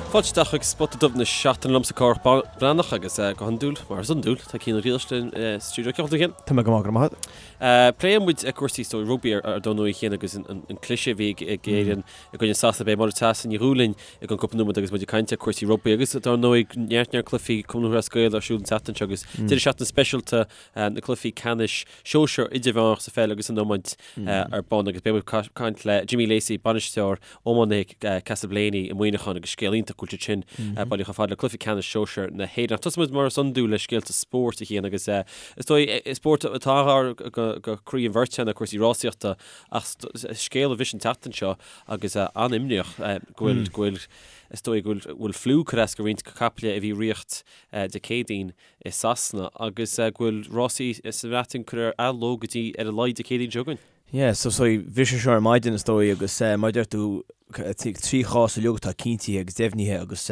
Fáilte isteach chuig Spota Dubh na Seachtaine liomsa Cárthach Breathnach agus go hiondúil, mar is iondúil, tá Cian Ó Griallais linn sa stiúideo. Cén chaoi a bhfuil tú, a Chian? Tá mé go maith, go raibh maith agat. Pléann muid cúrsaí is dóigh rugbaí ar ndóigh a Chian agus an cliseadh a bhí ag Éirinn i gcoinne Sasana. Beidh Máire Treasa Ní Dhubhghaill linn i gceann cúpla nóiméad agus muid ag caint ar cúrsaí rugbaí agus dar ndóigh neart neart cluichí Cumann Lúthchleas Gael ar siúl an tseachtain seo agus deireadh seachtaine speisialta na cluichí ceannais sóisear idirmheánach sa pheil agus san iomáint ar bun agus beidh muid ag caint le Jimmy Lacey, bainisteoir iománaithe Castleblayney i Muineachán agus scéal iontach go bhfuil siad sin bailithe chomh fada le cluiche ceannais sóisear na hÉireann. Ach tosóidh muid mar is iondúil le scéalta spóirt a Chian agus is dóigh spórt atá gar go croí an bheirt ná cúrsaí rásaíochta ach scéal a bhris an tseachtain seo agus an-imníoch go bhfuil go bhfuil is dóigh go bhfuil fliú curtha as go roinnt caiple a bhí ag ritheacht Dé Céadaoin i Sasana agus go bhfuil rásaí sa Bhreatain curtha ar athló go dtí ar a laghad Dé Céadaoin seo chugainn. Yeah, so so bhris sé seo ar maidin is dóigh agus mar a deir tú 3 chás uilig atá cinntithe agus deimhnithe agus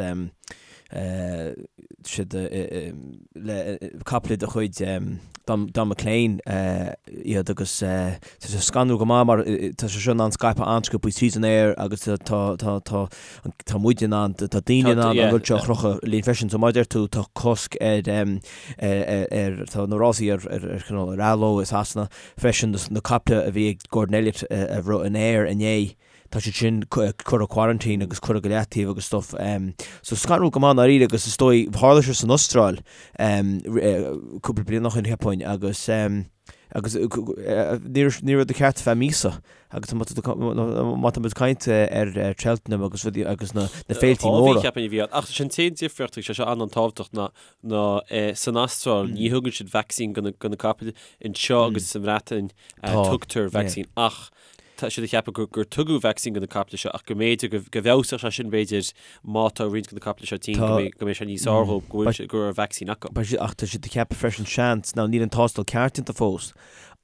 siad le caiple de chuid Don McLean iad agus tá sé scanrúil go maith mar tá sé seo in ann scaipeadh an-sciobtha tríd an aer agus tá tá tá tá muid in ann, tá daoine in ann an rud seo a chrochadh linn freisin. So mar a deir tú, tá cosc ar, ar, tá na rásaí ar, ar, ar cineál ar athló i Sasana freisin, na caiple a bhí ag Gordon Elliott a rith in Ayr inné, tá siad sin curtha quarantine agus curtha go leataobh agus stuff. So scanrúil go maith i ndáiríre agus is dóigh, tharla sé san Astráil cúpla bliain ó shin cheapfainn agus agus ní raibh rud ceart feadh míosa. Agus má tá muid ag caint ar Cheltenham agus rudaí agus na féiltí móra. Dhá mhí cheapfainn a bhí ann. Ach sin an t-aon difríocht agus sé seo an-tábhachtach ná ná san Astráil ní thugann siad vacsaín do na capaill anseo agus sa Bhreatain tugtar vacsaín ach tá siad ag ceapadh gur tugadh vacsaín do na caiple seo ach go mb'fhéidir go bhfeabhsódh sé sin b'fhéidir má tá roinnt de na caiple seo tinn go mbeidh sé níos fearr dhóibh go bhfuil go raibh vacsaín acu. Ach tá siad ag ceapadh freisin seans, now níl an tástáil ceart déanta fós,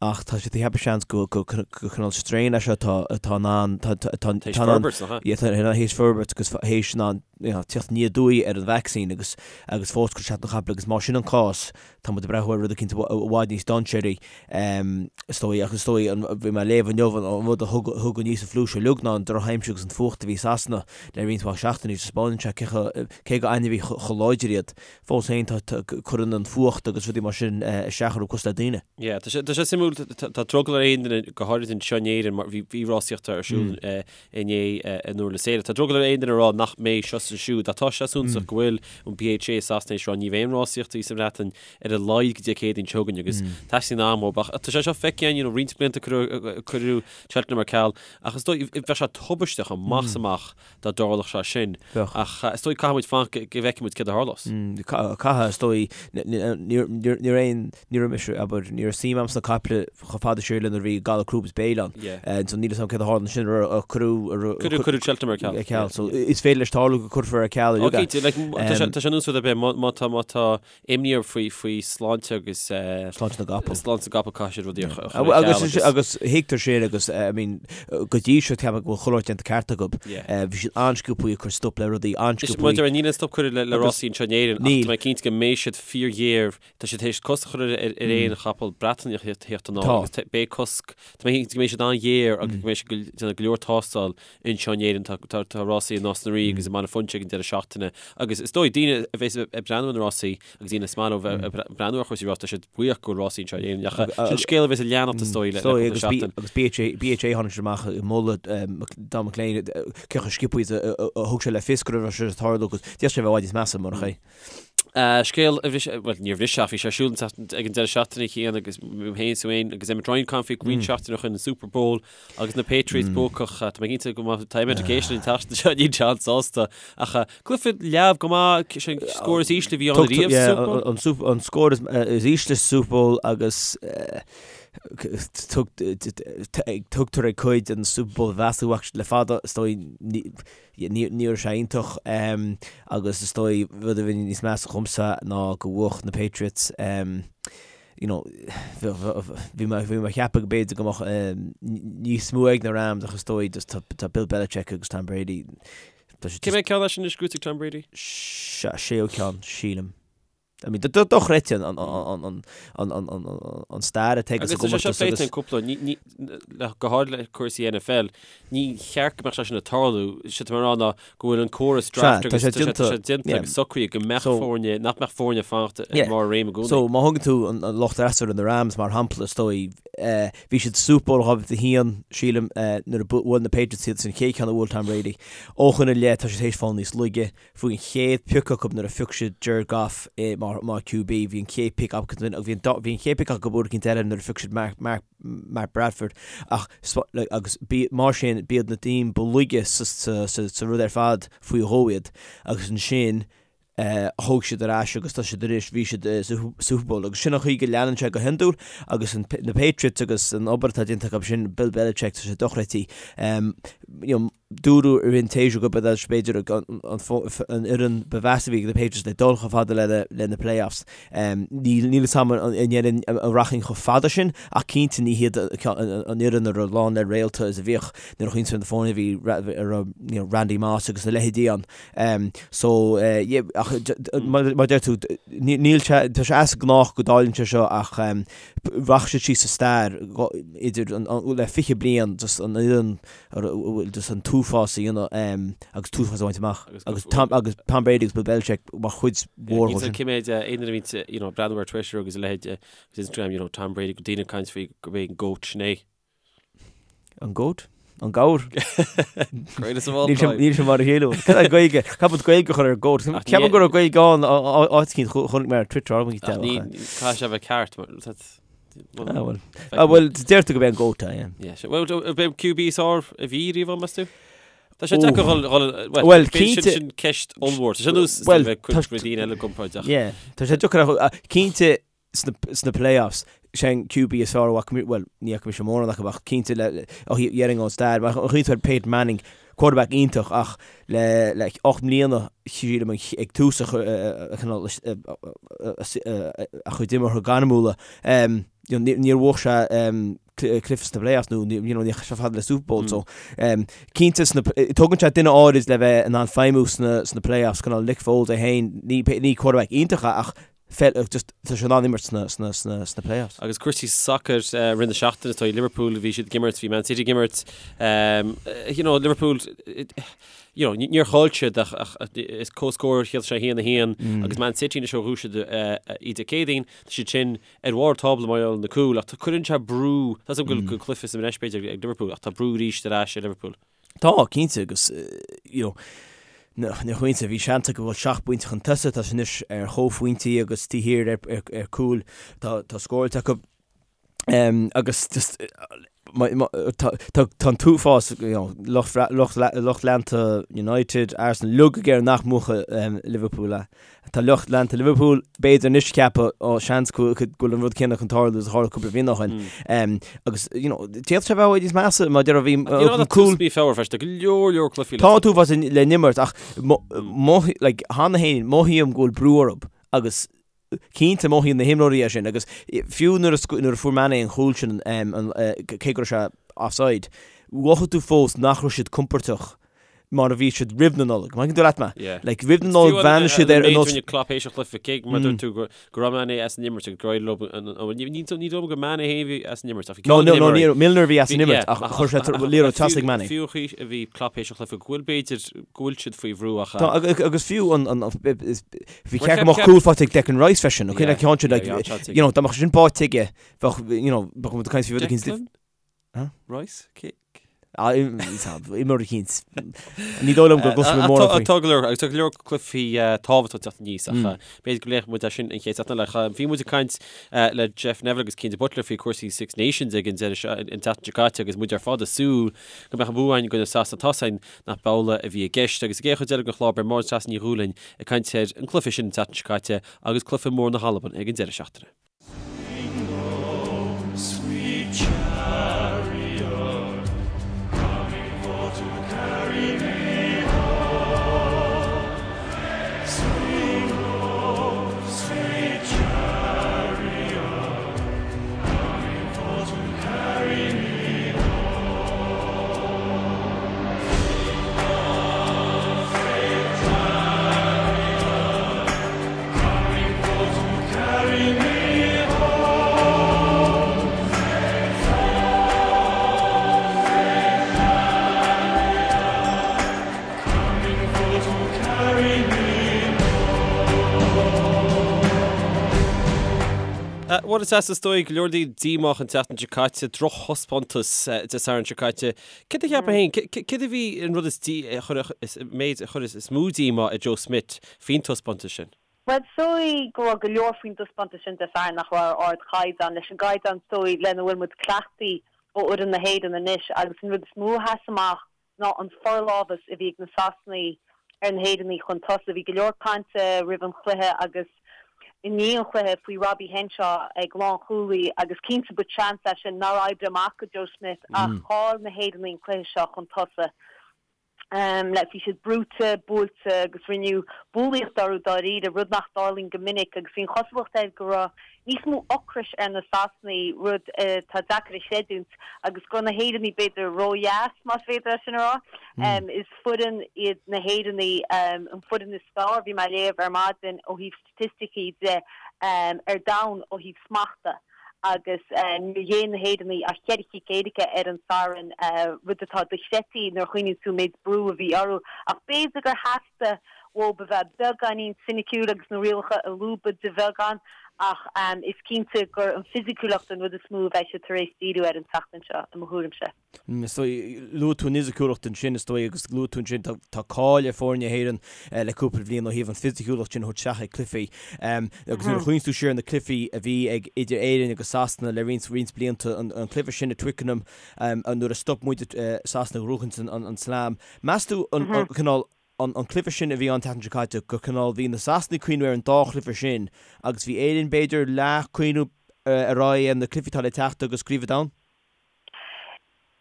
Ach tá siad ag ceapadh seans go cineál strain é seo atá atá in ann tá tá tá Théis forbairt, nach ea? Yeah, tá théis forbairt agus théis in ann you know, teacht aniar aduaidh ar an vacsaín agus agus fós cur isteach ar na caiple agus má sin an cás tá muid ag breathnú ar rud eicínt i bhfad níos dainséaraí is dóigh ach is dóigh an bhí mé ag léamh inniu an rud a thug thug aníos an fliú seo uilig ná an drochaimsir agus an fuacht a bhí i Sasana le roinnt mhaith seachtainí taispeánann sé cé chomh cé gur ainmhithe chomh láidir iad Fós féin, tá, cuireann an fuacht agus rudaí mar sin isteach orthu cosúil le daoine. Yeah, tá sé, tá sé suimiúil, tá drogall ar aon duine, go háirid anseo in Éirinn, mar bhí, bhí rásaíocht ar siúl inné in Durlas Éile. Tá drogall ar aon duine a rá nach mbeidh seo is ansiúd, ach tá sé suntasach go bhfuil an BHA i Sasana tar éis rá ní bheidh aon rásaíochtaí sa Bhreatain ar a laghad go dtí Dé Céadaoin seo chugainn agus teastaíonn am ó, ach tá sé seo feicthe againn, you know, roinnt blianta cuireadh, cuireadh Cheltenham ar ceal, ach is dóigh, bheadh sé tubaisteach amach is amach dá dtarlódh sé sin. Bheadh. Ach is dóigh caithfidh muid fanacht go bhfeicfidh muid céard a tharlós. Caithfidh, is dóigh. Ní raibh aon, ní raibh mise, abair, ní raibh suim a'm sna caiple chomh fada siar le nuair a bhí galar crúb is béil ann. So níl 'fhios a'm céard a tharla ansin, ar cuireadh, Cuireadh, cuireadh Cheltenham ar ceal. Ar ceal. So is féidir leis tarlú go cuirfear ar ceal uilig é. Cinnte, like, tá sé, tá sé ar nós rud ar bith, má tá, má tá imní orthu faoi, faoi sláinte agus. Sláinte na gcapall. Sláinte na gcapall caithfidh siad rudaí a chur ar ceal agus. Agus thuigtear sin agus I mean go dtí seo ceapaim go bhfuil chuile shórt déanta ceart acu. Bhí siad an-sciobthaí ag cur stop le rudaí, an-sciobthaí. Maidir níl aon stop curtha le rásaí anseo in Éirinn ach tá mé cinnte go mbeidh siad fíorghéar, tá siad théis cosc a chur ar aon chapall Breataineach a theacht anall agus beidh cosc, tá mé cinnte go mbeidh siad an-ghéar agus go mbeidh siad ag déanamh go leor tástáil Anseo in Éirinn tá rásaí i Nás na Rí agus i mBaile Phúinse ag an deireadh seachtaine agus is dóigh daoine a bheas ag breathnú ar na rásaí agus daoine is maith leo bheith ag breathnú ar chúrsaí rása tá siad buíoch go bhfuil rásaí anseo in Éirinn ach sin scéal a bheas ag leanacht is dóigh le cúpla seachtain. Agus BHA tháinig siad amach ag moladh Don McLean cé chomh sciobtha is a thug sé le fios go raibh sé ag tarlú agus d'fhéadfadh sé a bheith i bhfad níos measa murach é. Scéal a bhris, bhuel níor bhris ach bhí sé ar siúl ag an deireadh seachtaine Cian agus mé féin is tú féin agus Emmet Ryan ag caint faoi roinnt seachtaine ó shin an Super Bowl Agus na Patriots buacach, tá mé cinnte go mbeidh tá Emmet ag éisteacht an tseachtain seo, níl sé an-sásta. Ach cluiche leamh go maith, sé an scór is ísle a bhí ann ariamh sa Super Bowl. An, an scór is, is ísle sa Super Bowl agus tugtar ag cuid an Super Bowl a mheas ach le fada, is dóigh, ní, ní raibh sé iontach agus is dóigh rud a bhí níos measa dhomsa ná go bhuaigh na Patriots. you know, bhí mé bhí mé ag ceapadh go b'fhéidir go mbeadh níos mó ag na Rams ach is dóigh just tá tá Bill Belichick agus Tom Brady tá sé Cé mhéad ceann é sin anois gnóite ag Tom Brady? Séú ceann, sílim. I mean, dochreidte an, an, an, an, an, an, an stair atá agus an comórtas agus. Agus cúpla, ní, ní, le, go háirid le cúrsaí NFL, ní cheart go mbeadh sé sin ag tarlú, sé tá mé a rá ná go bhfuil an córas draft agus tá sé déanta agus socraithe go mbeadh foirne, nach mbeadh foirne ag fanacht i mbarr réime i gcónaí. So má thugann tú an lucht fhreasúra na Rams mar shampla is dóigh, bhí siad Super Bowl 2001 sílim nuair a bhuail na Patriots iad sin an chéad cheann a bhuail Tom Brady. Ó shin i leith tá siad théis fáil níos laige, Fuair an chéad pioc acu nuair a phioc siad Jared Goff mar mar QB, bhí an chéad pick acu bhí an bhí an chéad pick acu uair eicínt eile nuair a phioc siad Mark Mark Mark Bradford ach agus bí mar sin b'iad na team ba laige sa sa sa sa rud ar fad faoi dhó iad agus ansin eh thóg siad ar ais agus tá siad arís bhí siad sa Super Bowl agus sin an chaoi go leanann sé go hiondúil agus an na Patriots agus an obair atá déanta acu sin Bill Belichick tá sé dochreidte. Um, you know, Dúradh i rith an tséasúir gurb iad b'fhéidir an fhoireann ba mheasa a bhí ag na Patriots le dul chomh fada le na playoffs. Níl fhios agam an ndéarfainn an rachainn chomh fada sin ach cinnte ní hiad an fhoireann a raibh lán le réalta is a bhíodh nuair a chuimhníonn tú ar na foirne a bhí a raibh Randy Moss agus a leithéidí ann. So yeah ach mar a deir tú níl sé tá sé as gnách go dtarlaíonn sé seo ach rachaidh siad síos sa stair idir le 20 bliain just an fhoireann a bhfuil just an t-uafás a dhéanamh agus t-uafás a bhaint amach agus Tom agus Tom Brady agus Bill Belichick mar chuid mhór dhó sin. Cé mhéad aon duine a bhíonn you know breathnú ar Twitter agus a leithéid agus Instagram you know Tom Brady go daoine ag caint faoi gurb é an GOAT sin é. An GOAT? An gabhar? Greatest of all time. Níl sé mar a chéile. Cad é Gaeilge? Caithfidh muid Gaeilge a chur ar GOAT? Ceapaim go raibh Gaeilge ann áit eicínt chonaic mé ar Twitter ar Ní caithfidh sé a bheith ceart mar Ah bhuel. Ah bhuel, deirtear gurb é an GOAT é, yeah. Yeah, sure. Well, b'é an QB is fearr a bhí riamh ann, meas tú? Tá sé deacair dhul, dhul, well, Well, cinnte- sin, sin ceist ollmhór. Tá sé nós Well, bheith tá- cuid daoine eile i gcomparáid ach. Yeah, tá sé deacair a, cinnte sna, sna playoffs, sé an QB is fearr a bhfaca, well, ní fhaca mise mórán acu ach cinnte le, le, ó dhéarfainn ón stair, mar a chuimhníonn tú ar Peyton Manning, quarterback iontach ach le le 8 mbliana sílim ag tús a chineál a chuid imeartha gairmiúla níor bhuaigh sé cluiche sna playoffs nó you know ní raibh sé fada le Super Bowl so cinnte sna tugann sé duine áirid le bheith in ann feidhmiú sna sna playoffs cineál Nick Foles é féin ní ní quarterback iontach é ach just tá sé in ann imirt sna sna sna sna playoffs. Agus cúrsaí sacair i rith na seachtaine, tá Liverpool, bhí siad ag imirt, bhí Man City ag imirt, you know, Liverpool, you know, níor chaill siad ach ach is comhscór shíl sé 1-1 agus Man City anois ó bhuaigh siad iad Dé Céadaoin, tá siad sin ar bharr tábla mar gheall ar na cúil ach cuireann sé brú, tá a fhios agam go bhfuil cluiche sa mbreis b'fhéidir ag Liverpool ach tá brú arís ar ais ar Liverpool. Tá, cinnte, agus you know, nuair a chuimhníonn tú, bhí seans acu a dhul seacht bpointe chun tosaigh, tá siad anois ar chomhphointí agus taobh thiar ar, ar, ar cúil, tá, tá scóráilte acu. Um, agus just, ma, ma, tá, tá, tá an t-uafás, you know, lucht, lucht, lucht leanta United, Arsenal, uilig ag iarraidh nach mbuafadh um, Liverpool é. Tá lucht leanta Liverpool, b'fhéidir anois ag ceapadh, ó, seans go bhfuil an rud céanna chun tarlú is a tharla cúpla bliain ó shin. Agus, you know, d'fhéadfadh sé a bheith níos measa mar deir bhí an cúl. Mí Feabhra freisin, tá go leor leor cluichí le. Tá an t-uafás le n-imirt ach like, cheana féin, mothaím go bhfuil brú orthu agus cinnte mothaíonn na himreoirí é sin agus fiú nuair a fuair Mané an chúl sin, cé go raibh sé offside, mhothaigh tú fós nach raibh siad compordach mar a bhí siad roimh na Nollag. An dtuigeann tú leat mé? Yeah. Like, roimh na Nollag bhreathnaigh siad ar an nós... Klopp théis an chluiche, cé mar dúirt tú go go raibh Mané as an imirt agus gur éirigh leo an- an- ní ní ní dóigh liom gur Mané féin a bhí as an imirt ach bhí No, no, no, ní Milner a bhí as an imirt ach chuir sé liathróid trasna ag Mané. Fiú chaoi a bhí Klopp théis an chluiche go bhfuil b'fhéidir go bhfuil siad faoi bhrú ach Tá, agus fiú an an is bhí ceart go mbeadh cúl faighte ag Declan Rice freisin, ok, like ceann sin like you know dá mbeadh sin báite aige bheadh you know bheadh muid ag caint faoi rud eicínt Huh? Rice? Cé? Imreoir eicínt. Ní dóigh liom go gcloisfidh mé mórán faoi. Tá go leor, agus tá go leor cluichí tábhachtach ag teacht aníos ach b'fhéidir go bpléifidh muid é sin an chéad seachtain eile. Bhí muid ag caint le Jeff Neville agus Cian de Buitléar faoi chúrsaí Six Nations ag an deireadh seo, an tseachtain seo caite agus muid ar fad ag súil go mbeadh an bua againn i gcoinne Sasana. Tá a fhios againn nach b'amhlaidh a bhí i gceist agus sa gcéad chuid eile den chlár beidh Máire Treasa Ní Dhúlaing ag caint ar an gcluiche sin an tseachtain seo caite agus cluiche mór na hAlban ag an deireadh seachtaine. Bhuel, is is dóigh go leor daoine díomách an tseachtain seo caite, drochthaispeántas Dé Sathairn seo caite. Céard a cheapfá féin, céard a bhí an rud is is méid a chuir is mó díomá ar Joe Schmidt faoin taispeántas sin? Bhuel, is dóigh go raibh go leor faoin dtaispeántas sin Dé Sathairn nach raibh ar ardchaighdeán, leis an gcaighdeán is dóigh lena bhfuil muid cleachtaithe ó fhoireann na hÉireann anois agus an rud is mó a sheas amach ná an forlámhas a bhí ag na Sasanaigh ar na hÉireannaigh chun tosaigh. Bhí go leor cainte roimh an chluiche agus i ndiaidh an chluiche faoi Robbie Henshaw ag lánchúlaí agus cinnte ba chance é sin nár oibrigh amach do Joe Schmidt ach chaill na hÉireannaigh an cluiche seo chun tosaigh. Le bhí siad brúite, buailte agus rinneadh bulaíocht orthu dáiríre, rud nach dtarlaíonn go minic agus bhí an chosúlacht air go raibh níos mó ocrais ar na Sasanaigh, rud atá deacair a chreidiúint, agus go raibh na hÉireannaigh b'fhéidir ródheas, más féidir é sin a rá. Is foireann iad na hÉireannaigh, an foireann is fearr, bhí mé ag léamh ar maidin, ó thaobh staitisticí de, ar domhan ó thaobh smachta agus níor ghéill na hÉireannaigh ach cheithre chic éirice ar an Satharn, rud atá dochreidte nuair a chuimhníonn tú an méid brú a bhí orthu. Ach b'fhéidir gur theastaigh uathu a bheith beagáinín soiniciúil agus na rialacha a lúbadh de bheagán ach is cinnte gur an fisiciúlacht an rud is mó a bheidh siad tar éis díriú air an tseachtain seo, i mo thuairimse. Is dóigh, luaigh tú an fhisiciúlacht ansin, is dóigh, agus luaigh tú ansin, tá cáil ar foirne na hÉireann le cúpla bliain ó thaobh an fisiciúlacht sin a thabhairt isteach ag cluichí. Agus nuair a chuimhníonn tú siar ar na cluichí a bhí ag idir Éirinn agus Sasana le roinnt, roinnt blianta, an cluiche sin i Twickenham nuair a stop muid Sasana ag gnóthachaint an slam. Meas tú an cineál an cluiche sin a bhí an tseachtain seo caite, gur cineál bhí na Sasanaigh ag cuimhniú ar an dá chluiche sin agus bhí Éirinn b'fhéidir leath cuimhniú ar aghaidh ar na cluichí atá le teacht agus Craobh an Domhain?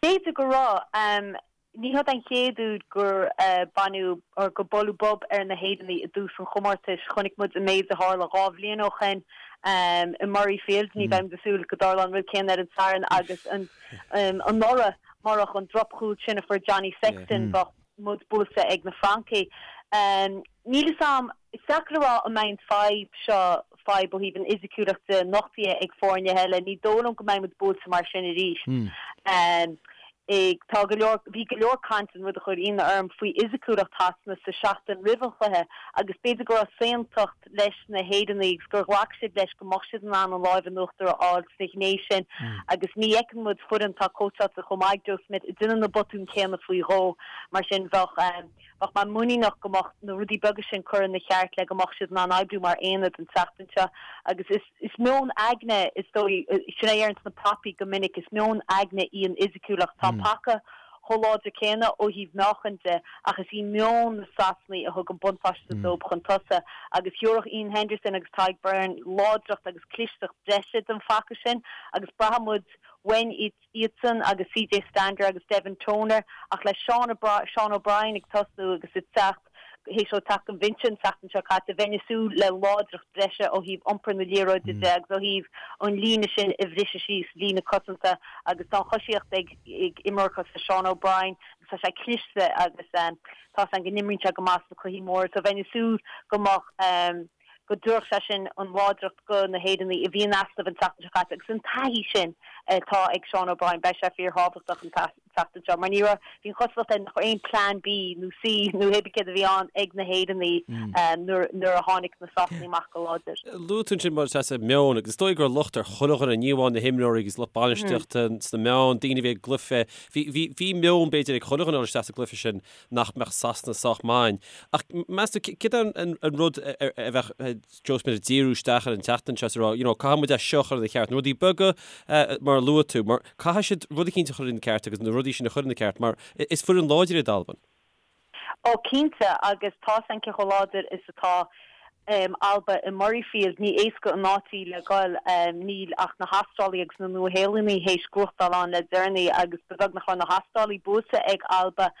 B'fhéidir go raibh. Ní hiod an chéad uair gur baineadh or gur buaileadh bob ar na hÉireannaigh i dtús an chomórtais. Chonaic muid an méid a tharla 2 bhliain ó shin i Murrayfield. Ní bheidh muid ag súil go dtarlódh an rud céanna ar an Satharn agus anuraidh murach an drochchúl sin a fuair Johnny Sexton bheadh muid buailte ag na Francaigh. Níl fhios a'm, is deacair a rá an mbeidh an fadhb seo, fadhb ó thaobh an fhisiciúlacht de, nochtaithe ag foirne eile. Ní dóigh liom go mbeidh muid buailte mar sin arís. Tá go leor, bhí go leor cainte, an rud a chuir ionadh orm, faoi fhisiciúlacht Shasana sa seachtain roimh an chluiche agus b'fhéidir go raibh saontacht, leis na hÉireannaigh agus gur ghlac siad leis go mbeadh siad in ann an láimh in uachtar a fháil sna ghné sin agus ní fheiceann muid foireann atá cóitseáilte chomh maith ag Joe Schmidt ag déanamh na botúin céanna faoi dhó. Mar sin bheadh bheadh mé muiníneach go mbeadh na rudaí beaga sin curtha ina cheart le go mbeadh siad in ann oibriú mar aonad an tseachtain seo agus is is meon aigne is dóigh, sin é a deireanns na prapaí go minic, is meon aigne í an fhisiciúlacht. Tá an paca chomh láidir céanna ó thaobh meáchain de ach is í meon na Sasanaigh a thug an buntáiste dóibh chun tosaigh agus thabharfadh Iain Henderson agus Tadhg Beirne láidreacht agus clisteacht breise don phaca sin agus braithfidh muid uainn iadsan agus CJ Stander agus Devin Toner ach le Sean Sean O'Brien ag tosnú agus ag teacht théis dó teacht ón bhinse an tseachtain seo caite, bheinn ag súil le láidreacht breise ó thaobh iompar na liathróide de agus ó thaobh an líne sin a bhriseadh síos, líne cosanta agus tá an choisíocht ag imreoir cosúil le Sean O'Brien agus tá sé cliste agus tá 's agam go n-imríonn sé go maith sna cluichí móra so bheinn ag súil go mbeadh go dtabharfadh sé sin an láidreacht go na hÉireannaigh a bhí in easnamh an tseachtain seo caite agus an taithí sin atá ag Sean O'Brien, beidh sé fíorthábhachtach an tseachtain seo mar ní raibh, bhí an chosúlacht air nach raibh aon plean B nó C nó hé bith céard a bhí ann ag na hÉireannaigh nuair a tháinig na Sasanaigh amach go láidir. Luaigh tú ansin mar is meon agus is dóigh go raibh locht ar chuile dhuine, ní amháin na himreoirí agus lucht bainistíochta sna meáin, daoine a bhí ag an gcluiche, bhí, bhí, bhí meon b'fhéidir ag chuile dhuine a dhul isteach sa gcluiche sin nach mbeadh Sasana sách maith. Ach meas tú, céard é an rud a bheadh Joe Schmidt ag díriú isteach ar an tseachtain seo is a rá, you know, caithfidh muid é seo a chur ina cheart, na rudaí beaga mar a luaigh tú, mar caithfidh siad rud eicínt a chur ina ceart agus na rudaí sin a chur ina ceart mar is foireann láidir iad Albain. Ó cinnte, agus tá 's a'm cé chomh láidir is atá Alba i Murrayfield, ní éasca an áit í le goil. Níl ach na hAstrálaigh agus na Nua-Shéalannaigh théis gnóthachtáil ann le deireanaí agus ba bheag nach raibh na hAstrálaigh buailte ag Alba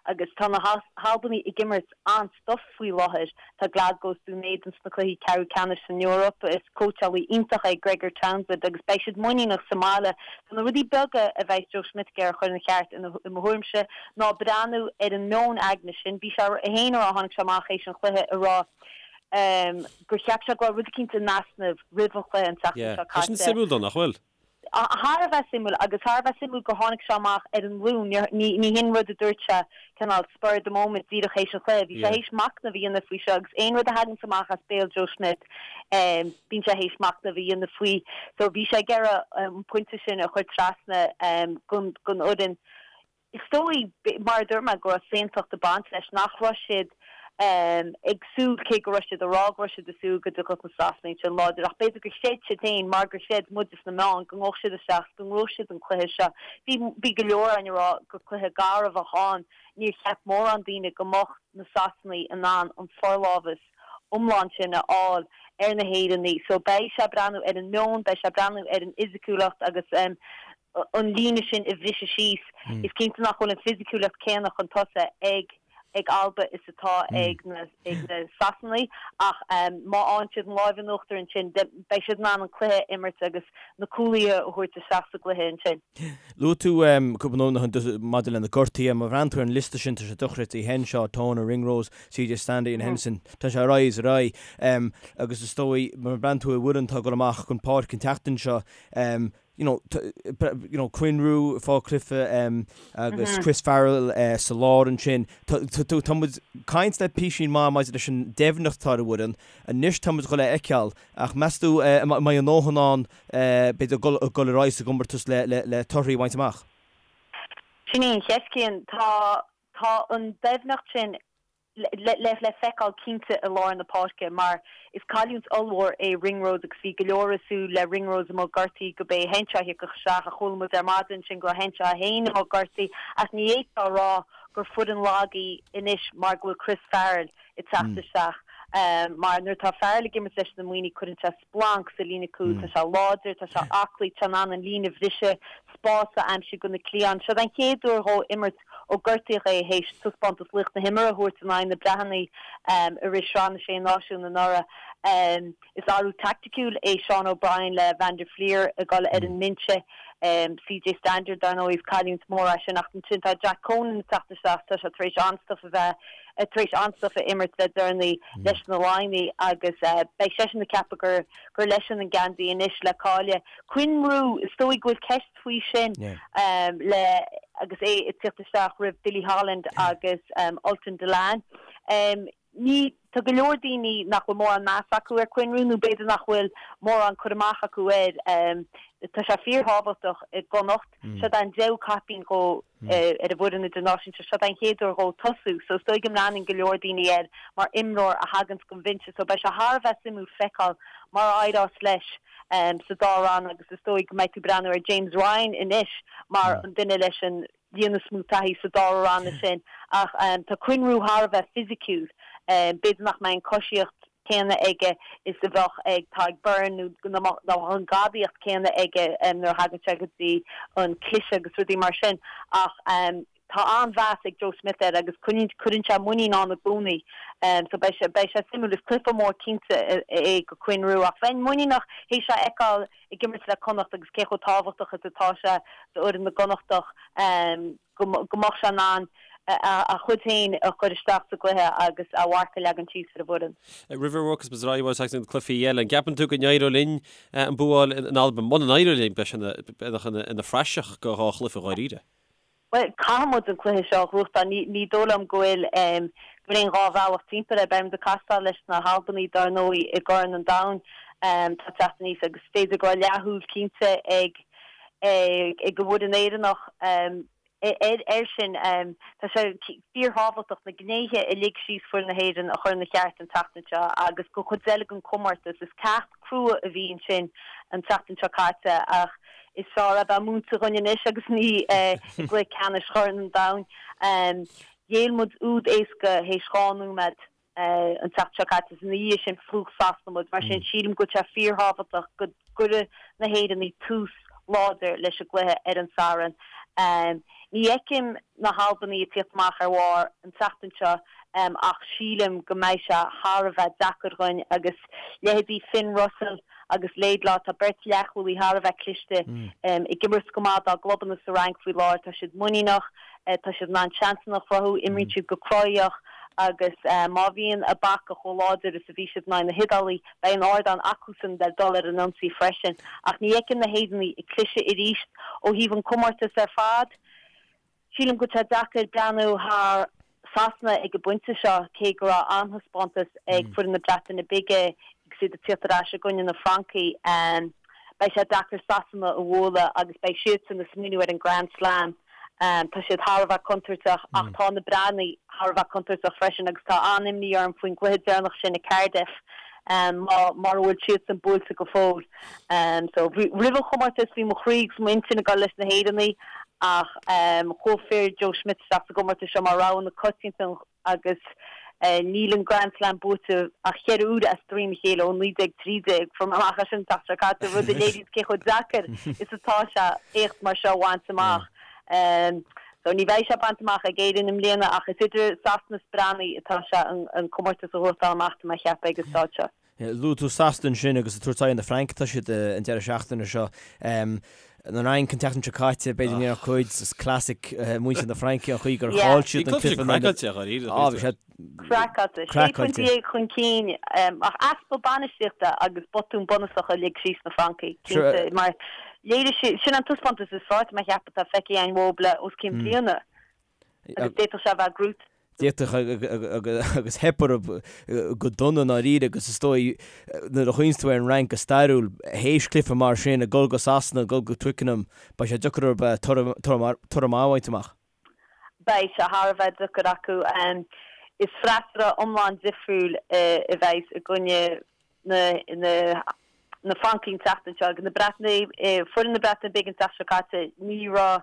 agus tá na hAlbanaigh ag imirt an-stuif faoi láthair. Tá Glasgow is Dún Éideann sna cluichí ceathrú ceannais san Eoraip. Is cóitseálaí iontach é Gregor Townsend agus beidh siad muiníneach sa mbaile. Tá na rudaí beaga a bheidh Joe Schmidt ag iarraidh a chur ina cheart i mo thuairimse ná breathnú ar an meon aigne sin. Bhí sé féin a rá, tháinig sé amach théis an chluiche a rá gur cheap sé go raibh rud eicínt in easnamh roimh an chluiche an tseachtain seo caite. Tá sin suimiúil dó, nach bhfuil? Thar a bheith suimiúil agus thar a bheith suimiúil gur tháinig sé amach ar an Luan. Ní hin rud a dúirt sé cineál spur of the moment díreach théis an chluiche. Bhí sé théis machnamh a dhéanamh faoi seo agus aon rud a thaganns amach as béal Joe Schmidt bíonn sé théis machnamh a dhéanamh faoi. So bhí sé ag iarraidh an pointe sin a chur trasna don fhoireann. Is dóigh, mar a dúirt mé, go raibh saontacht ag baint leis, nach raibh siad ag súil, cé go raibh siad ag rá go raibh siad ag súil go dtiocfadh na Sasanaigh ansin láidir, ach b'fhéidir gur chreid siad féin, mar gur chreid muide sna meáin, go ngabhfadh siad isteach is go ngnóthódh siad an cluiche seo. Bhí, bhí go leor againn ag rá gur cluiche garbh a bheadh ann. Níor cheap mórán daoine go mbeadh na Sasanaigh in ann an forlámhas iomlán sin a fháil ar na hÉireannaigh. So beidh sé ag breathnú ar an meon, beidh sé ag breathnú ar an fhisiciúlacht agus an líne sin a bhriseadh síos. Is cinnte nach bhfuil an fisiciúlacht céanna chun tosaigh ag ag Alba is atá ag na ag na Sasanaigh ach má fhaigheann siad an láimh in uachtar ansin beidh siad in ann an cluiche a imirt agus na cúlaithe a thabhairt isteach sa gcluiche ansin. Luaigh tú cúpla nóiméad ó shin maidir le na gortuithe. Má bhreathnaíonn tú ar an liosta sin tá sé dochreidte. Henshaw, Toner, Ringrose, CJ Stander, Iain Henderson. Tá sé ar aghaidh is ar aghaidh. Agus is dóigh má bhreathnaíonn tú ar an bhfoireann atá ag dul amach chun páirce an tseachtain seo, you know, you know, Quinn Roux ag fáil cluiche agus Chris Farrell sa lár ansin. Tá muid ag caint le písín maith maidir leis an doimhneacht atá ar an bhfoireann. Anois tá muid ag dul a fheiceáil ach meas tú an mbeidh a ndóthain ann b'fhéidir dul ar aghaidh sa gcomórtas le torthaí a bhaint amach? Sin í an cheist, Cian. Tá tá an doimhneacht sin le feiceáil cinnte i lár na páirce mar is cailliúint ollmhór é Ringrose agus bhí go leor ag súil le Ringrose amuigh gortaithe go b'é Henshaw a thiocfadh isteach ach chuala muid ar maidin ansin go raibh Henshaw féin amuigh gortaithe ach ní fhéadfá a rá gur foireann lag í anois mar go bhfuil Chris Farrell ag teacht isteach mar nuair atá Farrell ag imirt leis na Muimhnigh cuireann sé splanc sa líne cúil. Tá sé láidir, tá sé aclaí, tá sé in ann an líne a bhriseadh, spás a aimsiú do na cliatháin. Seo an chéad uair dhó imirt ó gortaíodh é théis taispeántas laoch na himeartha a thabhairt in aghaidh na Breataine i rith Sraith na Sé Náisiún anuraidh. Is athrú taicticiúil é Sean O'Brien le Van der Flier ag dul ar an mbinse. CJ Stander, dar ndóigh, is cailliúint mhór é sin ach ansin tá Jack Conan ag teacht isteach, tá sé tar éis an-stuif a bheith tar éis an-stuif a imirt le deireanaí leis na Laighnigh agus beidh seisean ag ceapadh gur gur leisean an geansaí anois le cailleadh. Quinn Roux, is dóigh go bhfuil ceist faoi sin le agus é ag tíocht isteach roimh Billy Holland agus Ultan Dillane. Ní, tá go leor daoine nach bhfuil mórán meas acu ar Quinn Roux nó b'fhéidir nach bhfuil mórán cur amach acu air. Tá sé fíorthábhachtach i gConnacht. Seo é an deichiú caipín dhó ar an bhfoireann idirnáisiúnta. Seo é an chéad uair dhó tosú so is dóigh go mbreathnaíonn go leor daoine air mar imreoir a thaganns gon bhinse so beidh sé thar a bheith suimiúil feiceáil mar a éireos leis sa dá rann agus is dóigh go mbeidh tú breathnú ar James Ryan anois mar an duine leis an líon is mó taithí sa dá ranna sin ach tá Quinn Roux thar a bheith fisiciúil. B'fhéidir nach mbeidh an coisíocht céanna aige is a bheadh ag Tadhg Beirne nó nach mbeadh an gadaíocht céanna aige nuair a thagann sé go dtí an cliseadh agus rudaí mar sin ach tá an-mheas ag Joe Schmidt air agus cuireann sé muinín ann i gcónaí so beidh sé beidh sé suimiúil. Is cluiche mór cinnte é go Quinn Roux ach bheinn muiníneach théis é a fheiceáil ag imirt le Connacht agus cé chomh tábhachtach is atá sé d'fhoireann na gConnachtach go mbeadh sé in ann a chuid féin a chur isteach sa gcluiche agus a mharc a leagan síos ar an bhfoireann. Roimh a bhogfas muid ar aghaidh chuig na cluichí eile, an gceapann tú go n-éireoidh linn an bua a fháil in Albain? Muna n-éireoidh linn, beidh sé ina phraiseach do dhá chluiche dháiríre. Bhuel, caithfidh muid an cluiche seo a ghnóthachtáil. Ní dóigh liom go bhfuil go bhfuil aon dhá bhealach timpeall air. Beidh muid ag castáil leis na hAlbanaigh dar ndóigh i gCorn an Domhain atá ag teacht aníos agus is féidir go raibh leathshúil cinnte ag ag an bhfoireann Éireannach air sin. Tá sé fíorthábhachtach na gnéithe a lig síos foireann na hÉireann a chur ina cheart an tseachtain seo agus don chuid eile den chomórtas. Is ceacht crua a bhí ansin an tseachtain seo caite ach is fearr é bheith múinte dhúinn anois agus ní i gcluiche ceannais Chorn an Domhain. Ghéill muid úd éasca théis 2 nóiméad. an tseachtain seo caite is ina dhiaidh sin phlúch Sasana muid. Mar sin, sílim go bhfuil sé fíorthábhachtach go gcuirfidh na hÉireannaigh tús láidir leis an gcluiche ar an Satharn. Ní fheicim na hAlbanaigh ag tíocht amach ar bharr an tseachtain seo ach sílim go mbeidh sé thar a bheith deacair dhúinn agus leithéidí Finn Russell agus Laidlaw, tá beirt leathchúlaí thar a bheith cliste ag imirt go maith dá gclubanna sa Fhrainc faoi láthair. Tá siad muiníneach, tá siad in ann seansanna a chruthú, imríonn siad go cruthaitheach. Agus má bhíonn a bpaca chomh láidir is a bhí siad in aghaidh na hIodálaí, beidh an ardán acusan le dul ar an ionsaí freisin. Ach ní fheicim na hÉireannaigh ag cliseadh arís. Ó thaobh an comórtas ar fad, sílim go bhfuil sé deacair breathnú thar Sasana ag an bpointe seo, cé go raibh an-taispeántas ag foireann na Breataine Bige agus iad ag tíocht ar ais i gcoinne na Francaigh. Beidh sé deacair Sasana a bhualadh agus beidh siadsan ag smaoineamh ar an Grand Slam. Tá siad thar a bheith contúirteach ach tá na Breatnaigh thar a bheith contúirteach freisin agus tá an-imní orm faoin gcluiche deireanach sin i Cardiff mara bhfuil siadsan buailte go fóill. So roimh an chomórtas bhí mo chroí agus m'intinn ag dul leis na hÉireannaigh ach chuaigh fir Joe Schmidt isteach sa gcomórtas seo mar rogha na coitianta agus níl an Grand Slam buaite ach cheithre huaire as droim a chéile ó 1913. Fuair mé amach é sin an tseachtain seo caite, rud a léiríonn cé chomh deacair is atá sé éacht mar seo a bhaint amach. So ní bheidh sé bainte amach ag Éirinn i mbliana ach is idir Sasana is Breatnaigh atá sé an comórtas a ghnóthachtáil amach, tá mé a cheapadh ag an staid seo. Luaigh tú Sasana ansin agus ag tabhairt aghaidh ar na Frainc atá siad an deireadh seachtaine seo. An Fhrainc an tseachtain seo caite, b'fhéidir ní raibh cuid, is classic muintir na Fraince an chaoi gur chaill siad an cluiche. Craiceáilte a dháiríre. Á, bhí sé craiceáilte. Sé phointe dhéag chun cinn ach easpa bainistíochta agus botún bunúsach a lig síos na Francaigh, cinnte, mar léirigh siad, sin an taispeántas is fearr tá mé a cheapadh atá feicthe againn uathu le os cionn bliana. Agus d'fhéadfadh sé a bheith gnóite. D'fhéadfadh agus theip orthu go dona i ndáiríre agus is dóigh nuair a chuimhníonns tú ar an Fhrainc go stairiúil, théis cluiche mar sin, ag dul go Sasana, ag dul go Twickenham, beidh sé deacair orthu toradh maith a bhaint amach. Beidh sé thar a bheith deacair acu. Is freasúra iomlán difriúil a bheas i gcoinne na na Francaigh an tseachtain seo agus na Breatnaigh, foireann na Breataine Bige an tseachtain seo caite, ní raibh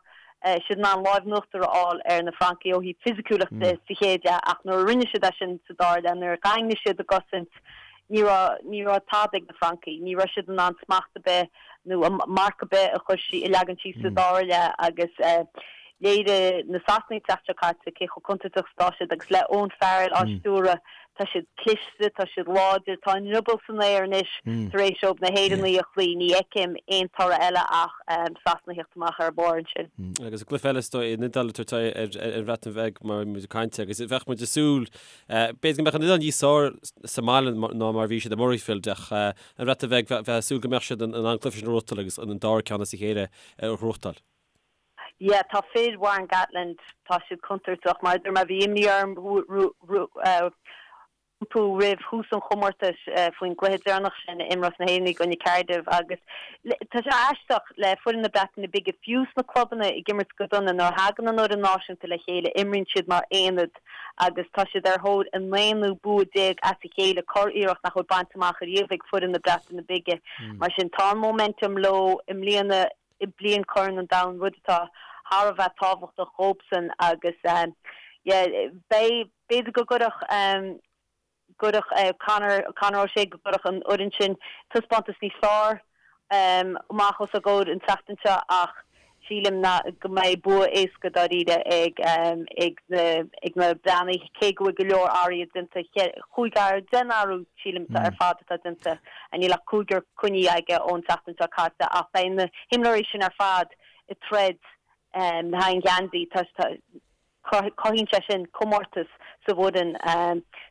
siad in ann lámh in uachtar a fháil ar na Francaigh ó thaobh fisiciúlacht de sa chéad leath ach nuair a rinne siad é sin sa dara leath, nuair a dhaingnigh siad a gcosaint, ní raibh, ní raibh tada ag na Francaigh. Ní raibh siad in ann smacht ar bith nó marc ar bith a chur sí, a leagan síos sa dara leath agus léirigh na Sasanaigh an tseachtain seo caite cé chomh contúirteach is atá siad agus le Owen Farrell á stiúradh, Tá siad cliste, tá siad láidir, tá a ndrioból san aer anois tar éis dóibh na hÉireannaigh a chloí. Ní fheicim aon toradh eile ach Sasana a theacht amach ar barr ansin. Agus an cluiche eile is dóigh, an Iodáil ag tabhairt aghaidh ar an Bhreatain Bheag mar bhí muid ag caint agus bheadh muid ag súil, b'fhéidir go mbeadh an Iodáil níos fearr sa mbaile ná mar a bhí siad i Murrayfield ach an Bhreatain Bheag, bheifeá ag súil go mbeadh siad in ann an cluiche sin a ghnóthachtáil agus an dara ceann as a chéile a ghnóthachtáil. Yeah, tá fir Warren Gatland, tá siad contúirteach. Mar a dúirt mé, bhí imní orm rompu roimh thús an chomórtais faoin gcluiche deireanach sin a imreos na hÉireannaigh i gcoinne Cardiff agus tá sé aisteach le foireann na Breataine Bige, fiú sna clubanna ag imirt go dona, nuair a thagann an fhoireann náisiúnta le chéile, imríonn siad mar aonad agus tá siad ar thóir a n-aonú bua déag as a chéile, curiarracht nach bhfuil bainte amach ariamh ag foireann na Breataine Bige. Mar sin, tá an momentum leo i mbliana. i mbliain Chorn an Domhain, rud atá thar a bheith tábhachtach dhóibhsean agus yeah beidh, b'fhéidir go gcuirfeadh, gcuirfeadh Conor, Conor O'Shea, go gcuirfeadh an fhoireann sin taispeántas níos fearr amach os a gcomhair an tseachtain seo ach sílim ná go mbeidh bua éasca dáiríre ag ag na ag na Breathnaigh cé go bhfuil go leor athruithe déanta, chúig athrú, deich n-athrú sílim ar fad atá déanta. Níl ach cúigear coinnithe aige ón tseachtain seo caite ach beidh na himreoirí sin ar fad ag troid le haghaidh an gheansaí. Cothaíonn sé sin comórtas sa bhfoireann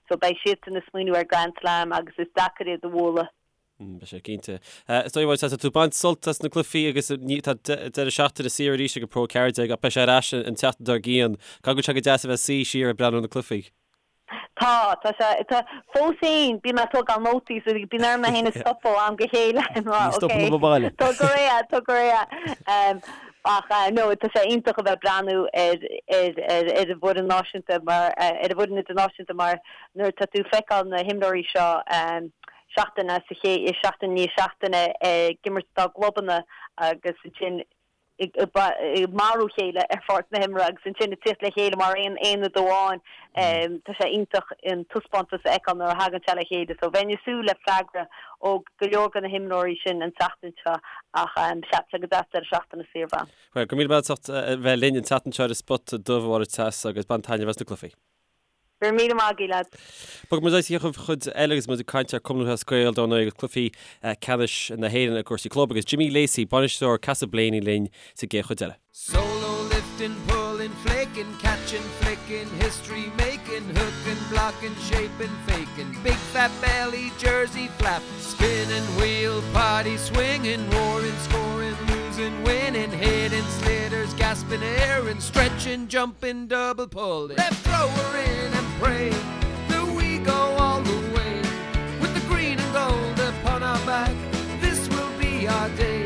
so beidh siadsan ag smaoineamh ar Grand Slam agus is deacair iad a bhualadh. Beidh sé cinnte. Is dóigh tá tú ag baint sult as na cluichí agus tá deireadh seachtaine saor arís ag an Pro 14 ach beidh sé ar ais an tseachtain dár gcionn. Caithfidh go bhfuil sé go deas a bheith ag suí siar ag breathnú ar na cluichí. Tá, tá sé, tá, fós féin, bíonn mé ag tógáil nótaí so bíonn orm mé féin a stopadh ó am go chéile mar Ní stopann ok, baile. tóg go réidh, tóg go réidh. Ach no, tá sé iontach a bheith ag breathnú ar, ar, ar, ar an bhfoireann náisiúnta mar, ar an bhfoireann idirnáisiúnta mar nuair atá tú ag feiceáil na himreoirí seo seachtain as a chéile, seachtain i ndiaidh seachtaine ag imirt dá gclubanna agus ansin ag marú a chéile ar pháirc na himeartha agus ansin ag tíocht le chéile mar aon aonad amháin. Tá sé iontach an taispeántas a fheiceáil nuair a thagann sé le chéile. So bheinn ag súil le freagra ó go leor de na himreoirí sin an tseachtain seo ach sea, tá sé go deas deireadh seachtaine saor a bheith ann. Bhuel, go raibh míle maith agat as ucht a bheith linn an tseachtain seo ar an Spota Dubh, a Mháire Treasa, agus bain taitneamh as na cluichí. Go raibh míle maith agaibh, lads. Bogfaidh muid ar aghaidh sa chuid eile agus muid ag caint ar Cumann Lúthchleas Gael dar ndóigh agus cluichí ceannais na hÉireann i gcúrsaí club agus Jimmy Lacey, bainisteoir Castleblayney linn sa gcéad chuid eile. Solo lifting, pulling, flaking, catching, flicking, history making. Kicking, hooking, blocking, shaping, faking, big fat belly, jersey flap, spinning wheel, party swinging, roaring, scoring, losing, winning, hitting, sliotars, gasping air and stretching, jumping, double pulling. Left thrower in and pray that we go all the way with the green and gold upon our back. This will be our day.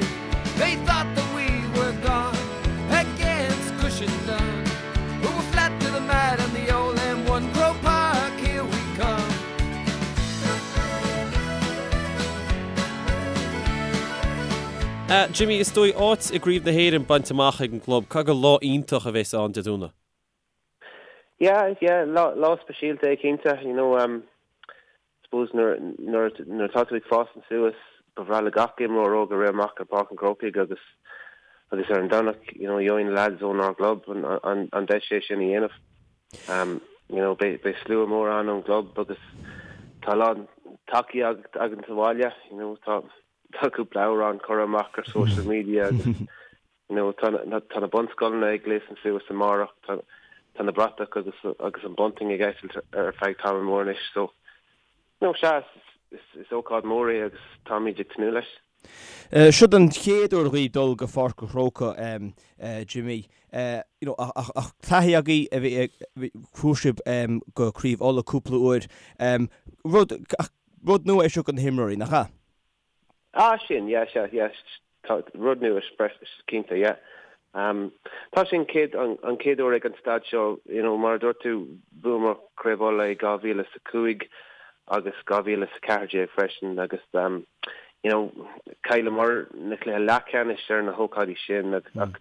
They thought that we were gone against Cushendun, but we're flat to the mat on the old M1 Croke Park. Here we come. Jimmy, is dóigh áit i gCraobh na hÉireann bainte amach ag an gclub. Caithfidh gur lá iontach a bheas ann Dé Domhnaigh? Yeah, yeah, lá, lá speisialta é cinnte, you know, um, suppose nuair, nuair, nuair atá tú ag fás suas, ba bhreá le gach imreoir óg a rith amach ar Páirc an Chrócaigh agus, agus ar an Domhnach, you know, gheobhaidh na lads ónár gclub an, an, an deis é sin a dhéanamh. Um, you know, beidh, beidh slua mór ann ón gclub agus tá a lán tacaíocht againn sa bhaile, you know, tá, tá cúpla amhrán curtha amach ar social media agus you know tá tá na bunscoileanna ag gléasadh suas amárach, tá tá na bratach agus agus an bunting ag eitilt ar feadh tamall mór anois so you know sea is is ócáid mór é agus táimid ag tnúth leis. Siod an chéad uair dhaoibh dul go Pháirc an Chrócaigh, Jimmy. You know, ach ach taithí agaibh a bhí chuaigh sibh go Craobh Uladh cúpla uair. Rud ach rud nua é seo do na himreoirí, nach ea? Ah, sin, yeah, sea, yeah, tá rud nua cinnte, yeah. Um, tá sé an chéad, an, an chéad uair ag an staid seo, you know, mar a dúirt tú, bhuamar Craobh Uladh i 2005 agus 2014 freisin agus, um, you know, chailleamar na cluiche leathcheannais ar na hócáidí sin agus ach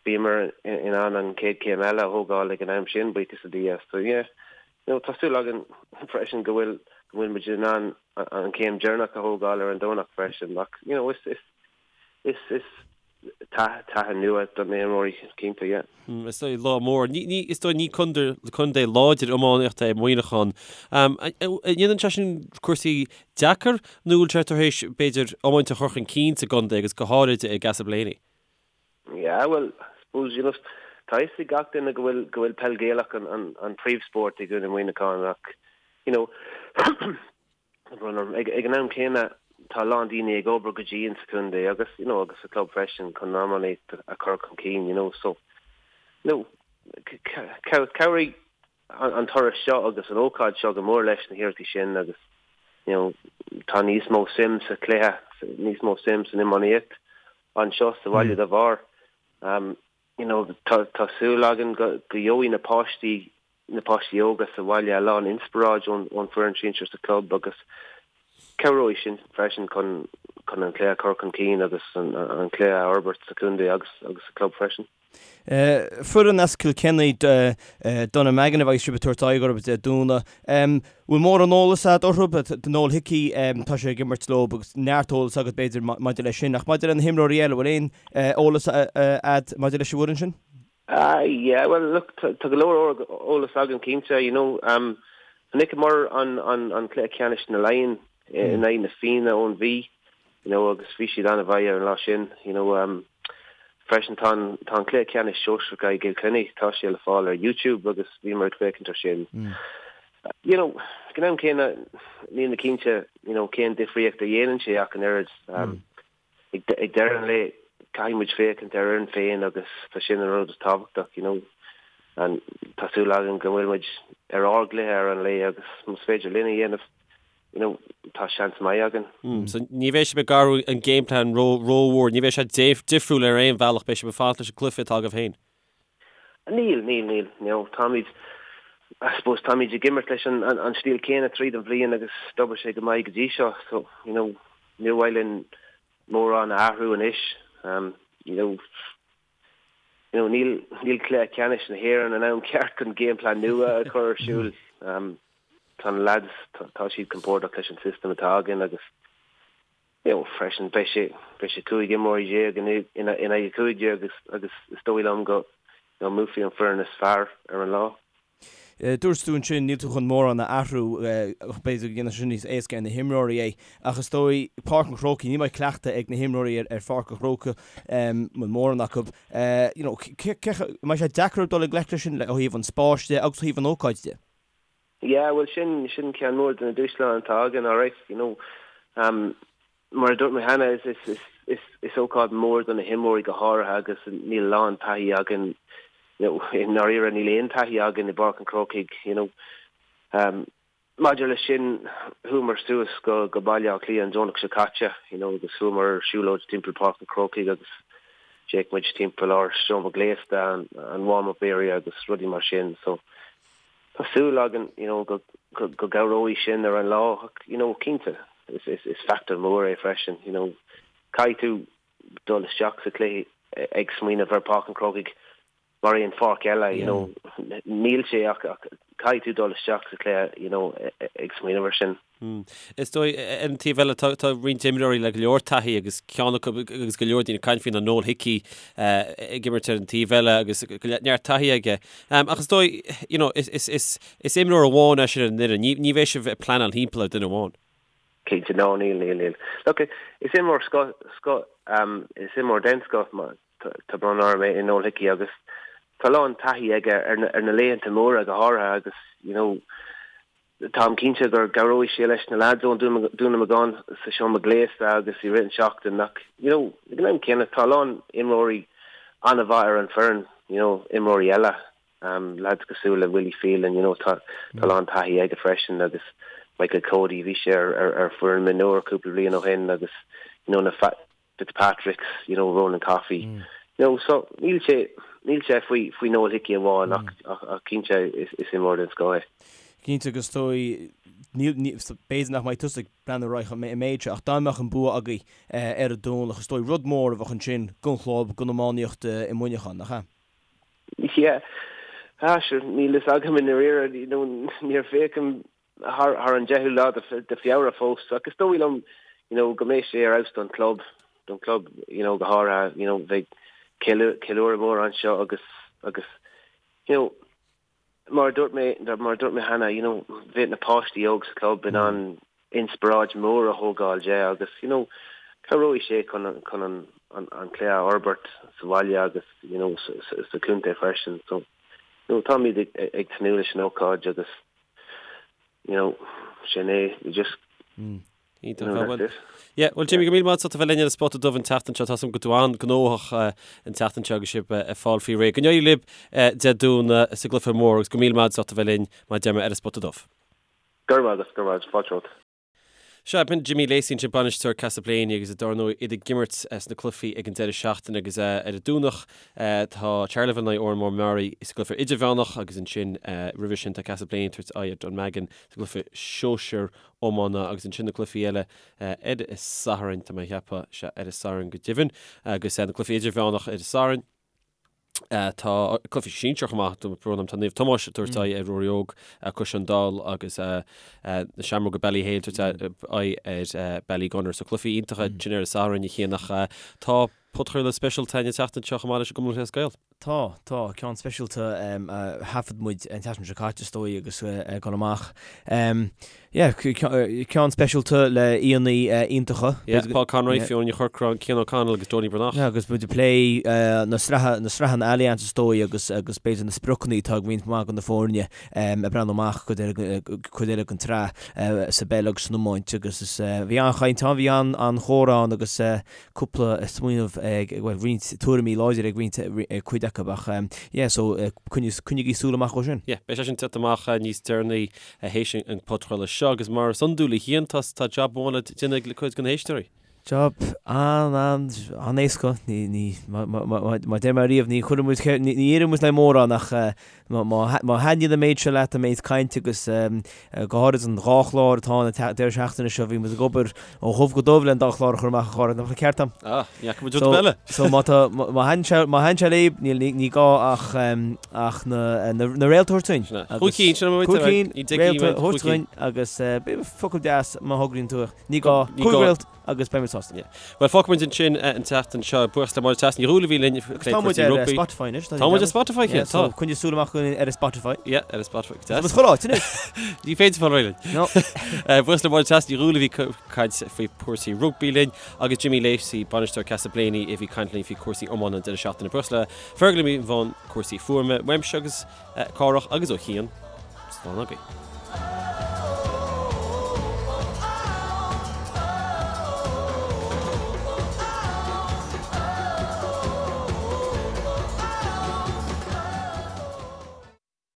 bhíomar in ann an chéad chéim eile a thógáil ag an am sin, buíochas le Dia. So, yeah, you know, tá súil againn freisin go bhfuil, go bhfuil muid in ann an chéim deireanach a thógáil ar an Domhnach freisin ach you know is is is is taithí nua do na himreoirí cinnte, yeah. Is dóigh lá mór. Ní ní is dóigh ní contae contae láidir iománaíochta é Muineachán. An ndéanann sé sin cúrsaí deacair nó bhfuil sé tar éis b'fhéidir iomáint a chur chun cinn sa gcontae agus go háirid i gCastleblayney? Yeah, well, I suppose, you know, tá a fhios ag gach duine go bhfuil go bhfuil peil Gaelach an an an príomhspórt i gContae Mhuineacháin ach, you know, ag ag an am céanna tá a lán daoine ag obair go dian sa chontae agus, you know, agus sa club freisin chun an iománaíocht a chur chun cinn, you know, so, you know, chabhraigh an turas seo agus an ócáid seo go mór leis na hiarrachtaí sin agus, you know, tá níos mó suim sa chluiche, níos mó suim san iománaíocht anseo sa bhaile dá bharr. You know, tá tá súil againn go go gheobhaidh na páistí, na páistí óga sa bhaile a lán inspioráid ón ón foireann sinsir sa club agus cabhróidh sin freisin chun chun an cluiche a chur chun cinn agus an an cluiche a fhorbairt sa chontae agus agus sa club freisin. Foireann as Kilkenny, Dunnamaggin a bheidh sibh ag tabhairt aghaidh orthu Dé Domhnaigh. Bhfuil mórán eolas agat orthu? Noel Hickey, tá sé ag imirt leo agus neart eolas agat b'fhéidir maidir leis sin. Ach maidir le na himreoirí eile, bhfuil aon eolas agat maidir leis an bhfoireann sin? Ah yeah, well look, tá go leor eolas agam cinnte, you know. Chonaiceamar an an cluiche ceannais na Laighean in aghaidh na Fianna ón Mhí. you know agus bhí siad an-mhaith ar an lá sin, you know um freisin tá an tá an cluiche ceannais sóisearach i gCill Chainnigh, tá sé le fáil ar YouTube agus bhíomar ag féachaint ar sin. You know, ag an am céanna níl mé cinnte, you know, cén difríocht a dhéanann sé ach an oiread. Um ag ag deireadh an lae caithfidh muid féachaint ar fhoireann féin agus tá sin an rud is tábhachtach, you know. And tá súil againn go bhfuil muid ar ár gcluiche ar an lae agus más féidir linn a dhéanamh you know, tá seans maith againn. So ní bheidh sibh ag athrú an game plan ró rómhór, ní bheidh sé difriúil ar aon bhealach, beidh sibh ag fanacht leis an gcluiche atá agaibh féin. Níl, níl, níl. You know, táimid, I suppose, táimid ag imirt leis an, an, an stíl céanna tríd an bhliain agus d'obair sé go maith go dtí seo. So, you know, níor mhaith linn mórán a athrú anois. Um, you know, you know, níl, níl cluiche ceannais na hÉireann an am ceart chun game plan nua a chur ar siúl. Um, tá na lads, tá, tá siad compordach leis an system atá againn agus you know, freisin beidh sé, beidh sé 15 imreoirí in, in, in aghaidh 15 agus, agus is dóigh liom go, you know, mbuafaidh an foireann is fearr ar an lá. Dúirt tú ansin, níl tú chun mórán a athrú, b'fhéidir go ndéanfaidh sé sin níos éasca ar na himreoirí é, ach is dóigh, Páirc an Chrócaigh, ní mbeidh cleachtadh ag na himreoirí ar Pháirc an Chrócaigh, bhuel mórán acu, you know, an mbeidh sé deacair dul i ngleic leis sin ó thaobh an spáis de agus ó thaobh an ócáid de? Yeah, bhuel sin, sin ceann mór de na dúshláin atá againn, alright, you know. Um, mar a dúirt mé cheana, is, is, is, is, is ócáid mór do na himreoirí go háirithe agus níl a lán taithí againn, you know, i ndáiríre níl aon taithí againn i bPáirc an Chrócaigh, you know. Um, Maidir leis sin, chuamar suas go go Baile Átha Cliath an Domhnach seo caite, you know, agus chuamar ar siúlóid timpeall Páirc an Chrócaigh agus d'fhéach muid timpeall ár seomra gléasta, an an warm up area agus rudaí mar sin. So tá súil againn, you know, go go go gcabhróidh sin ar an lá ach, you know, cinnte, is is is factor mór é freisin, you know. Caithfidh tú dul isteach sa chluiche ag smaoineamh ar Páirc an Chrócaigh mar aon pháirc eile, you know, níl sé ach caithfidh tú dul isteach sa chluiche, you know, ag smaoineamh ar sin. Is dóigh, ar an taobh eile, tá roinnt imreoirí le go leor taithí agus ceann acu agus go leor daoine ag caint faoi ná Noel Hickey ag imirt ar an taobh eile agus neart taithí aige. Ach is dóigh, you know, is imreoir amháin é sin ar an fhoireann. Ní bheidh sibh ag pleanáil thimpeall ar duine amháin. Cinnte, no, níl, níl, níl. Look, is imreoir scoth, scoth, is imreoir den scoth, Tá brón orm é Noel Hickey agus tá a lán taithí aige ar na laethanta móra go háirithe agus you know táim cinnte go gcabhróidh sé leis na lads ón Dún na mBeagán sa seomra gléasta agus i rith an tseachtain ach you know ag an am céanna tá a lán imreoirí an-mhaith ar an foireann you know imreoirí eile um, lads cosúil le Willie Phelan you know tá tá a lán taithí aige freisin agus Michael Cody bhí sé ar ar ar foireann mionúir cúpla bliain ó shin agus you know na Fitzpatricks, you know, Ronan Coffey. You know, so níl sé, níl sé faoi, faoi Noel Hickey amháin ach, ach, ach cinnte is, is imreoir den scoth é. Cinnte agus is dóigh, níl, ní, b'fhéidir nach mbeidh tusa ag breathnú ar aghaidh an méid seo ach dá mbeadh an bua agaibh ar an Domhnach, is dóigh rud mór a bheadh ansin don chlub, don iománaíocht i Muineachán, nach ea? Yeah. Ah, sure, níl fhios agam i ndáiríre, you know, níor féachaim thar an deichiú lá de Feabhra fós ach is dóigh liom you know go mbeidh sé ar fheabhas don club, don club you know go háirithe you know bheidh ceiliúradh mór anseo agus agus you know mar a dúirt mé mar a dúirt mé cheana you know bheadh na páistí óg sa club in ann inspioráid mór a thógáil de agus you know cabhróidh sé chun chun an an an cluiche a fhorbairt sa bhaile agus you know sa sa chontae freisin so you know táimid ag ag tnúth leis an ócáid agus you know, sin é, you just, you know, that's it. Yeah, well Jimmy, go míle maith agat as ucht a bheith linn ar an Spota Dubh an tseachtain seo. Tá 's agam go bhfuil tú an-ghnóthach an tseachtain seo agus sibh ag fáil faoi réir. Go n-éirí libh Dé Domhnaigh sa gcluiche mór agus go míle maith agat as ucht a bheith linn mar a deir mé ar an Spota Dubh. Go raibh maith agat, go raibh maith agat, fáilte romhat. Sea, b'in Jimmy Lacey ansin, bainisteoir Castleblayney agus dar ndóigh iad ag imirt sna cluichí ag an deireadh seachtaine agus ar an Domhnach tá Charleville in aghaidh Oranmore Maree sa gcluiche idirmheánach agus ansin roimhe sin tá Castleblayney ag tabhairt aghaidh ar Dunvegan sa gcluiche sóisir iomána agus ansin na cluichí eile ar an Satharn, tá mé a cheapadh, sea, ar an Satharn go deimhin agus na cluichí idirmheánach ar an Satharn. Tá cluichí sinsir chomh maith, brón orm, tá Naomh Tomás ag tabhairt aghaidh ar Ruairí Óg Cois an Daill agus na Seamróga Ballyhale ag tabhairt aghaidh ar Ballygunner. So cluichí iontacha sin ar an Satharn a Chian ach tá podchraoladh speisialta againn an tseachtain seo chomh maith leis an gCumann Lúthchleas Gael. Tá, tá, ceann speisialta a thaifead muid an tseachtain seo caite is dóigh agus ag dul amach. Yeah, ceann speisialta le aíonna iontacha. Yeah, Paul Conroy, Fiona Ní Chorcráin, Cian O'Connell agus Donie Breathnach. Yeah, agus muid ag plé na sraithe, na sraitheanna Allianz is dóigh agus agus b'fhéidir na spriocanna atá ag roinnt mhaith de na foirne ag breathnú amach cuid eile cuid eile den tsraith sa bpeil agus san iomáint agus is bhí an-chaint ann, bhí an-chomhrá ann agus cúpla smaoineamh ag, bhuel, roinnt tuairimí láidre ag roinnt, ag cuid acu ach yeah, so coinnigí súil amach dhó sin. Yeah, beidh sé sin ag teacht amach níos deireanaí théis an podchraoladh seo agus mar is iondúil a Chian, tá tá job amháin le déanamh ag cuid de na héisteoirí. Job an an an-éasca, ní ní mar a deir mé riamh ní chuireann muid ní iarrann muid le mórán ach má má thaitníonn an méid seo leat an méid cainte agus go háirid an dhá chlár atá ann an deireadh seachtaine seo bhí muid ag obair ó dhubh go dubh le an dá chlár a chur amach a chara, nach ceart dom? Ah, ní fhaca muid rud eile. So má tá má thaitníonn sé má thaitníonn sé libh níl ní ní gá ach ach na na na réalta a thabhairt dúinn. Sin é. Chúig cinn, sin é Cúig cinn, réalta a thabhairt dúinn agus b'fhéidir focal deas má thograíonn tú ní gá cúig réalt agus beidh muid sásta. Yeah. Bhuel, fágfaidh muid ansin an tseachtain seo. Buíochas le Máire Treasa Ní Dhúill a bhí linn ag plé Tá muid cúrsaí ar rugbaí. Spotify anois. Tá muid ar Spotify, Yeah, so tá. coinnigh súil amach ar Spotify. Yeah, ar Spotify. Tá muid chuile áit anois. Ní féidir fáil réidh linn. No. Buíochas le Máire Treasa Ní Dhúill a bhí ag caint faoi chúrsaí rugbaí linn agus Jimmy Lacey, bainisteoir Castleblayney a bhí ag caint linn faoi chúrsaí iomána an deireadh seachtaine. Buíochas le Fergal i mbun cúrsaí fuaime, uaimse agus Cárthach agus ó Chian. Slán agaibh.